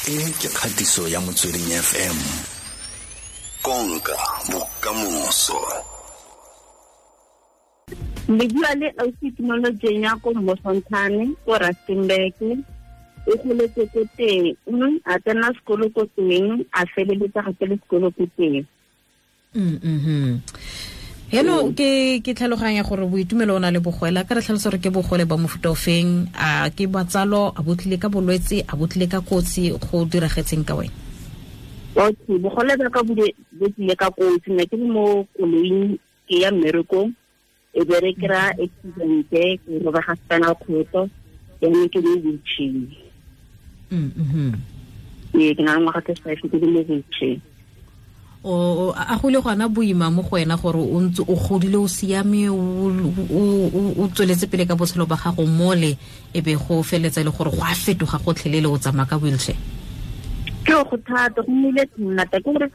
E ke kgatiso ya Motsweding FM. Konka bokamoso. Le bua le ausi Tumelo Jenya ko Mmosontshane ko Rustenburg. O goletse ko teng, a tsena sekolo ko teng, a feleletsa gape le sekolo ko teng. Heno ke tlhaloganya gore boitumelo o na le bogole, ka re tlhalosa gore ke bogole ba mofuta ofeng, a ke batsalo, a botlile ka bolwetse, a botlile ka kotsi, go diragetseng ka wena? Okay, bogole ba ka bo tlile ka kotsi, nna ke le mo koloing ke ya mmerekong, e be re kry-a accident, ke robega spinal cord, jaanong ke mo wheelchair. Ee, ke na le ngwaga tse 5 ke le mo wheelchair. O a go le gona boima mo go wena gore o ntse o godile o siame, o tsweletse pele ka botshelo ba gago mole, e be go feletsa le gore go a fetoga gotlhelele o tsamaya ka wheelchair? Ke go thata, go nnile thata, ke gore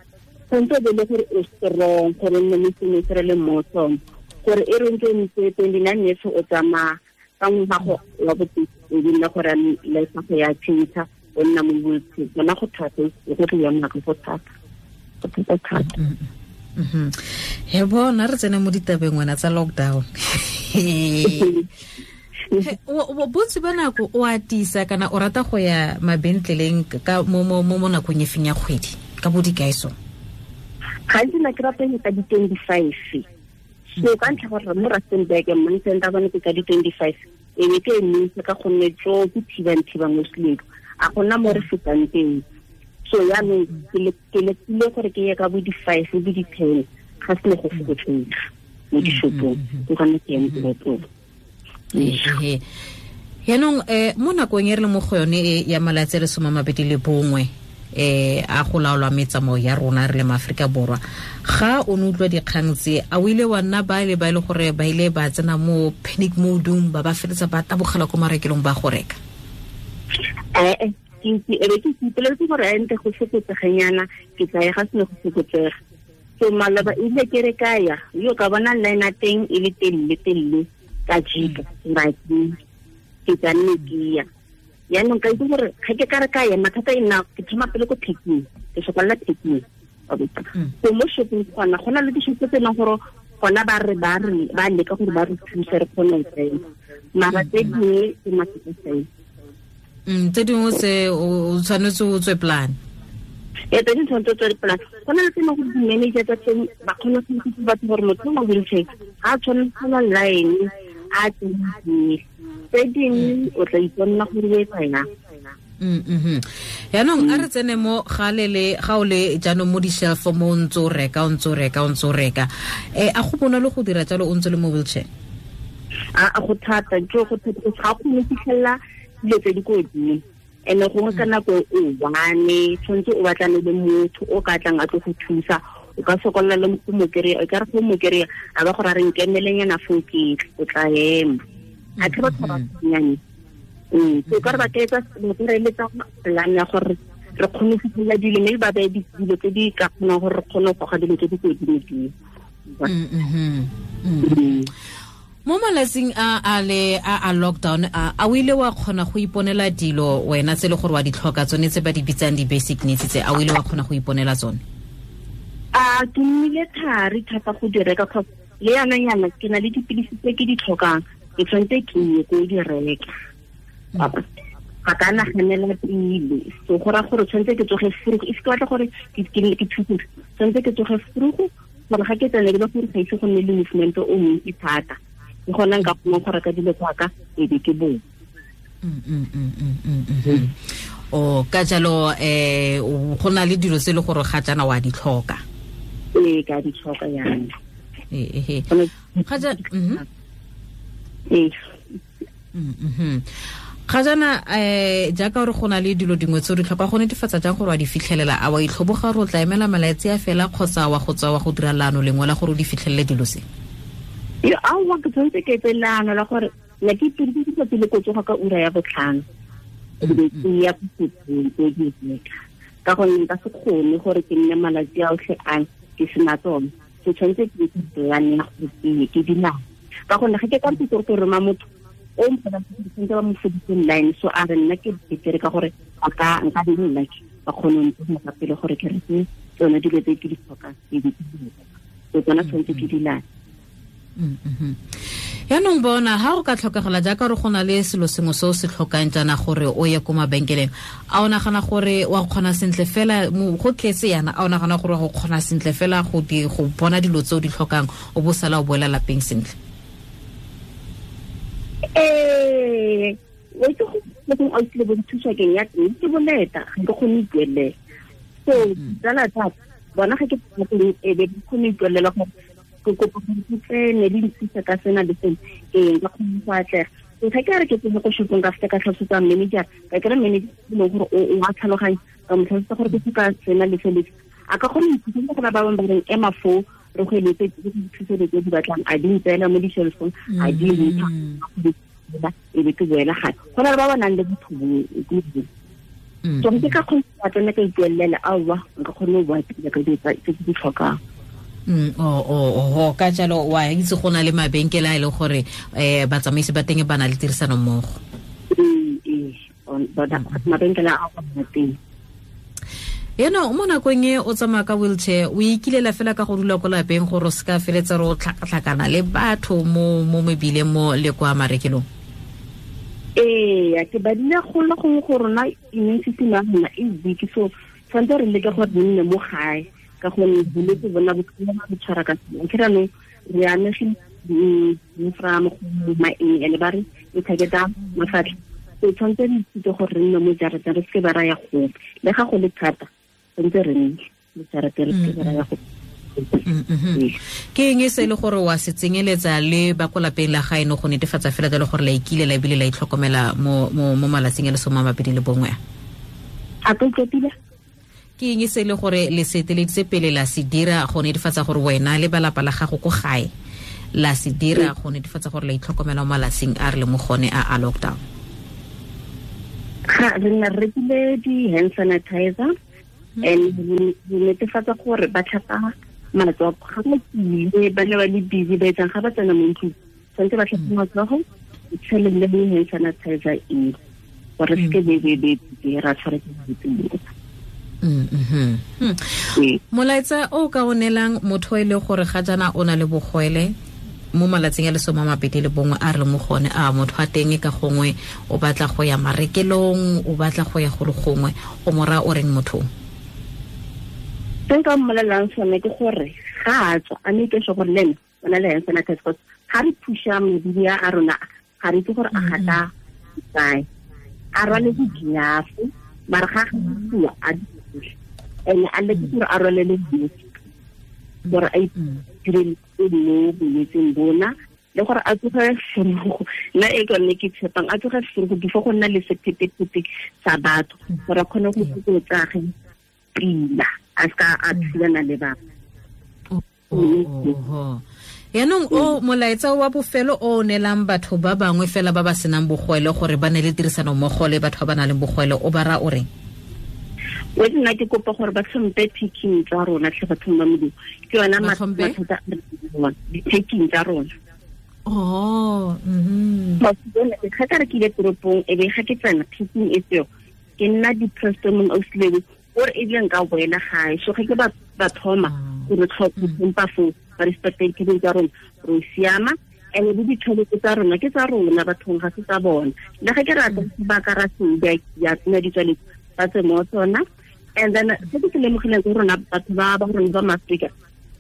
tshwanetse o be le gore o strong, gore o nne le sengwe se re le mo sone, gore e re ntse ntse 29 years o tsamaya ka ngwaga wa boteng, e be nna gore life ya go ya change, o nna mo wheelchair. Bona go thata, go tlo ya nako go thata. He bona re tsene mo ditabeng wena tsa lockdown. Bontsi ba nako o atisa kana o rata go ya mabentleleng ka mo mo nakong e feng ya kgwedi ka bo dikaeso? Gantsi nna ke rata go ka di-25. So ka ntlha gore mo Rustenburg money center bone ke ka di-25, e be ke emisa ka gonne tso ke thibang mo selelo, a gona mo re fetang teng. So yaanong ke lekile gore ke ye ka bo di-5 bo di-10, ga se ne go fokotsega mo dishopong, ke gone ke yang toropong. Yaanong mo nakong e re le mo go yone e ya malatsi a le 21 a go laolwa metsamao ya rona re le maAforika Borwa, ga o ne utlwa dikgang tse, a o ile wa nna ba le ba e le gore ba ile ba tsena mo panic mode-ong, ba ba feletsa ba tabogela ko marekelong ba go reka? Ke be ke ipoleletse gore a nte go fokotseganyana, ke tla ya ga sene go fokotsega. So maloba ile ke re ka ya, yo ka bona line ya teng e le telele telele ka jika, ke tla nne ke ya. Yaanong ka itse gore ga ke ka re ka ya, mathata e nna ke thoma pele ko picking, ke sokolla picking. So mo shopping gona, go na le dishopo tse e leng gore gona ba re ba re ba leka gore ba re thuse re kgone go tsena, mara tse dingwe ke mathata fela. Tse dingwe tse o tshwanetse o tswe plan. Ee, tse dingwe tshwanetse o tswe plan. Go na le tse e leng gore di-manager tsa teng ba kgona go itse batho gore motho mo wheelchair ga a tshwanetse go na line a tsene. Tse dingwe o tla iponna gore o etsa yang. Yaanong a re tsene mo ga o le jaanong mo di-shelf mo o ntse o reka, o ntse o reka, o ntse o reka. A go bonolo go dira jalo o ntse le mo wheelchair? A go thata, jo go thata, ga o kgone go fitlhelela dilo tse di ko godimo. And-e gongwe ka nako e one, tshwanetse o batlane le motho o ka tlang a tlo go thusa, o ka sokolla le go mo kry-a, o ka re go mo kry-a, a ba gore a re nkemelenyana foo ke tle, o tla ema. A ke batho ba bannyane. So ka re ba ka etsa, ba ka re eletsa plan ya gore re kgone go fitlhelela dilo, mme ba beye dilo tse di ka kgonang gore re kgone go goga dilo tse di ko godimo-dimo. Mo malatsing a le a lockdown, a o ile wa kgona go iponela dilo wena tse le gore wa di tlhoka tsone tse ba di bitsang di-basic needs tse, a o ile wa kgona go iponela tsone? A ke nnile thari thata go di reka, cause le yana yana ke na le dipilisi tse ke di tlhokang, ke tshwanetse ke ye ko di reka. Ga ka naganela pele, so go raya gore tshwanetse ke tsoge frugu, if ke batla gore ke thuse, tshwanetse ke tsoge frugu gore ga ke tsene ke le gore ga ise go nne le movement o montsi thata, ke gona nka kgonang go reka dilo tsa ka, e be ke boa. O ka jalo, go na le dilo tse e le gore ga jaana wa di tlhoka? Ee, ka di tlhoka jaanong. Ee. Ga ja-. Ee. Ga jaana, jaaka gore go na le dilo dingwe tse o di tlhoka, go netefatsa jang gore wa di fitlhelela? A wa itlhoboga gore o tla emela malatsi a fela, kgotsa wa go tswa wa go dira leano lengwe la gore o di fitlhelele dilo tse? Yo, aowa, ke tshwanetse ke etse leano la gore ne ke ipedisitse tsatsi le ko tsoga ka ura ya 5:30, e be ke ya ko sekolong, ke di reka. Ka gonne nka se kgone gore ke nne malatsi a otlhe a ke sena tsone. Ke tshwanetse ke etse plan ya gore ke ye ke di nang. Ka gonne ga ke ka mpitse gore ke roma motho o mpona ke tshwanetse ba mo fodise line, so a re nna ke betere ka gore Ka nka di nna ba kgone go ntse pele gore ke reke tsone dilo tse ke di tlhokang e di so tsona tshwanetse ke di late. Yaanong bona ha go ka tlhokagala jaaka re go na le selo sengwe se o se tlhokang jaana gore o ye ko mabenkeleng, a o nagana gore wa kgona sentle fela go tletse yana, a o nagana gore wa go kgona sentle fela go bona dilo tse o di tlhokang o bo sala o boela lapeng sentle? Ee, o itse go o tlile bo thusa keng ya teng ke boleta ga ke kgone ipuelela. So tsala tsa bona ga ke teng e be ke kgone ipuelela gore ke kopa gore ke tsene di nthusa ka sena le sena, ee nka kgone go atlega. So ga ke re ke tsene ko shopong ka feta ka tlhalosetsa manager, ka kry manager e leng gore o a tlhaloganya, ka mo tlhalosetsa gore ke tlhoka sena le sele, a ka kgona go nthusa. Go na ba bangwe ba reng ema foo re go eletse ke dithuso tse di batlang, a di ntseela mo di-shelfong, a di ntsha e be ke boela gae. Go na le ba ba nang le botho bo. So ke ka kgona go tsena ka ipuelela, aowa nka kgone go boa pila ka dilo tse ke di tlhokang. O ka jalo wa itse go na le mabenkele a e leng gore batsamaisi ba teng ba na le tirisano mmogo. Ee, mabenkele a go teng. Eno mo nakong e o tsamaya ka wheelchair, o ikilela fela ka go dula ko lapeng gore o se ka feletsa re o tlhakatlhakana le batho mo mebileng mo le kwa marekelong? Ee, ke badile go le gongwe go rona immune system ya rona e weak, so tshwanetse re leke gore re nne mo gae ka gonne bolwetse bona bo bo tshwara ka seng. Ke ranong re amegile from go maeng ene ba re e targeta mafatlha. So tshwanetse re ithute gore re nne mo jarateng, re seke ba ra ya gope, le ga go le thata tshwanetse re nne mo jarateng, re seke ba ra ya gope. Ke eng e se le gore wa se tsenyeletsa le ba ko lapeng la gaeno go netefatsa fela le gore la ikile la ebile la itlhokomela mo malatsing a le 21? A ka utlwa? Ke eng e se le gore le se eteleditse pele la se dira go netefatsa gore wena le balapa la gago ko gae la se dira go netefatsa gore la itlhokomela mo malatsing a re le mo gone a lockdown? Ga re nna re rekile di-hand sanitizer and re netefatsa gore ba tlhapa matsogo ga ba tsile, ba ne ba le busy ba etsang ga ba tsena mo ntlong, tshwanetse ba tlhape matsogo, tshele le hand sanitizer e gore se ke be ra tshwara ke bolwetse. Molaetsa o ka o neelang motho e le gore ga jaana o na le bogwele mo malatsing a le 21 a re mo gone, a motho a teng ka gongwe o batla go ya marekelong, o batla go ya go le gongwe, o mora o reng motho? Se nka mmolelelang sone ke gore ga a tswa a make sure gore le ene o na le hand sanitizer, because ga re phusha mebili a rona ga re itse gore a gata kae, a rwale di-glove, mara ga a a di ene a leke gore a rwale le mask gore a itireletse mo bolwetseng bona, le gore a tsoge forogo, nna e ke yone ke tshepang, a tsoge forogo before go nna le sephetephete sa batho gore a kgone go fokotsage pila, a seka a thulana le batho. Yaanong o molaetsa wa bofelo o neelang batho ba bangwe fela ba ba senang bogwele gore ba ne le tirisano mmogo le batho ba ba nang le bogwele, o ba ra o reng? O nna ke kopa gore ba tlhompe picking tsa rona tlhe bathong ba Modimo, ke yona mathata a re di-packing tsa rona. Oh, ga ka re ke ile toropong e be ga ke tsena picking e tseo ke nna depressed mong ausilebe gore ebile nka boela gae. So ga ke ba thoma gore tlhompa foo ba respecte dipicking tsa rona, re siama. And le ditšhelete tsa rona ke tsa rona bathong, ga se tsa bona. Le ga ke rata ba ka ra se ya tsena ditswaletse ba tse mo tsona. And then se ke se lemogileng ke rona batho ba ba rona ba Maaforika,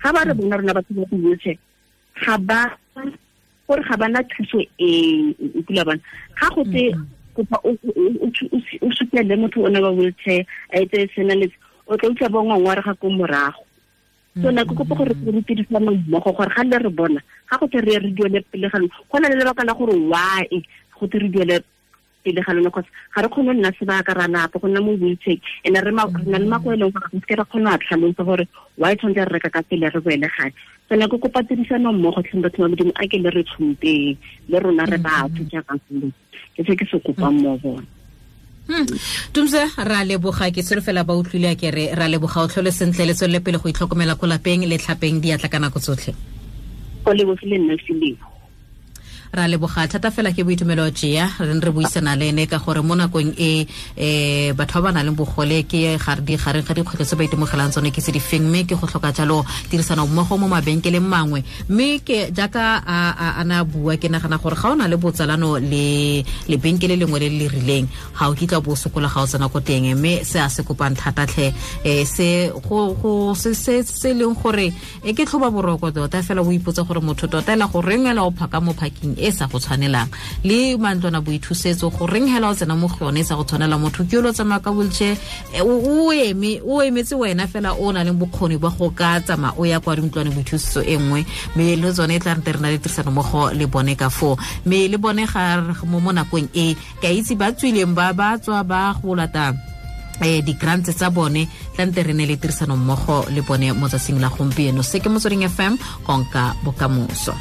ga ba re bona rona batho ba di-wheelchair, ga ba gore ga bana thuso e kula bona. Ga go tse kopa o supele motho o ne ba wheelchair a etse sena le o tla utlwa ba ngongorega ko morago. So nna ke kopa gore re tirisane mmogo gore ga le re bona ga go tle re re duele pele ga lona, go na le lebaka la gore why go tle re duele pele ga lona, cause ga re kgone go nna sebaka ra lapa go nna mo wheelchair, and re na le mako e leng gore ga se ke ra kgona go tlhalosa gore why tshwanetse re reka ka pele re boele gae. So nna ke kopa tirisano mmogo tlhe batho ba Modimo, a ke le re tlhompeng le rona re batho jaaka ke se ke se kopang mo bona. Tumza, ra leboga, ke solofela ba utlwile a ke re ra leboga, o tlhole sentle, le tswelele pele go itlhokomela ko lapeng le tlhapeng diatla ka nako tsotlhe. Go lebogile nna Selebo. Ra leboga thata fela ke Boitumelo Jea re re buisana le ene ka gore mo nakong e batho ba ba nang le bogole ke gareng ga dikgwetlho tse ba itemogelang tsone ke tse di feng, mme ke go tlhoka jalo tirisano mmogo mo mabenkeleng mangwe. Mme ke jaaka a na bua, ke nagana gore ga o na le botsalano le lebenkele lengwe le le rileng, ga o kitla bo sokola ga o tsena ko teng. Mme se a se kopang thata tlhe, se go se se leng gore e ke tlhoba boroko tota fela, o ipotsa gore motho tota ela go reng ela o phaka mo parking e sa go tshwanelang, le mantlwana boithusetso go reng hela o tsena mo go yone e sa go tshwanela. Motho ke yo tsamaya ka wheelchair, o eme o emetse wena fela o na le bokgoni ba go ka tsamaya o ya kwa dintlwane boithusetso e nngwe. Mme le tsone e tla re na le tirisano mmogo le bone ka foo, mme le bone ga mo nakong e ka itse ba tswileng ba ba tswa ba go lata di-grants tsa bone, tlante re ne le tirisano mmogo le bone mo tsatsing la gompieno. Se ke Motsweding FM, konka bokamoso.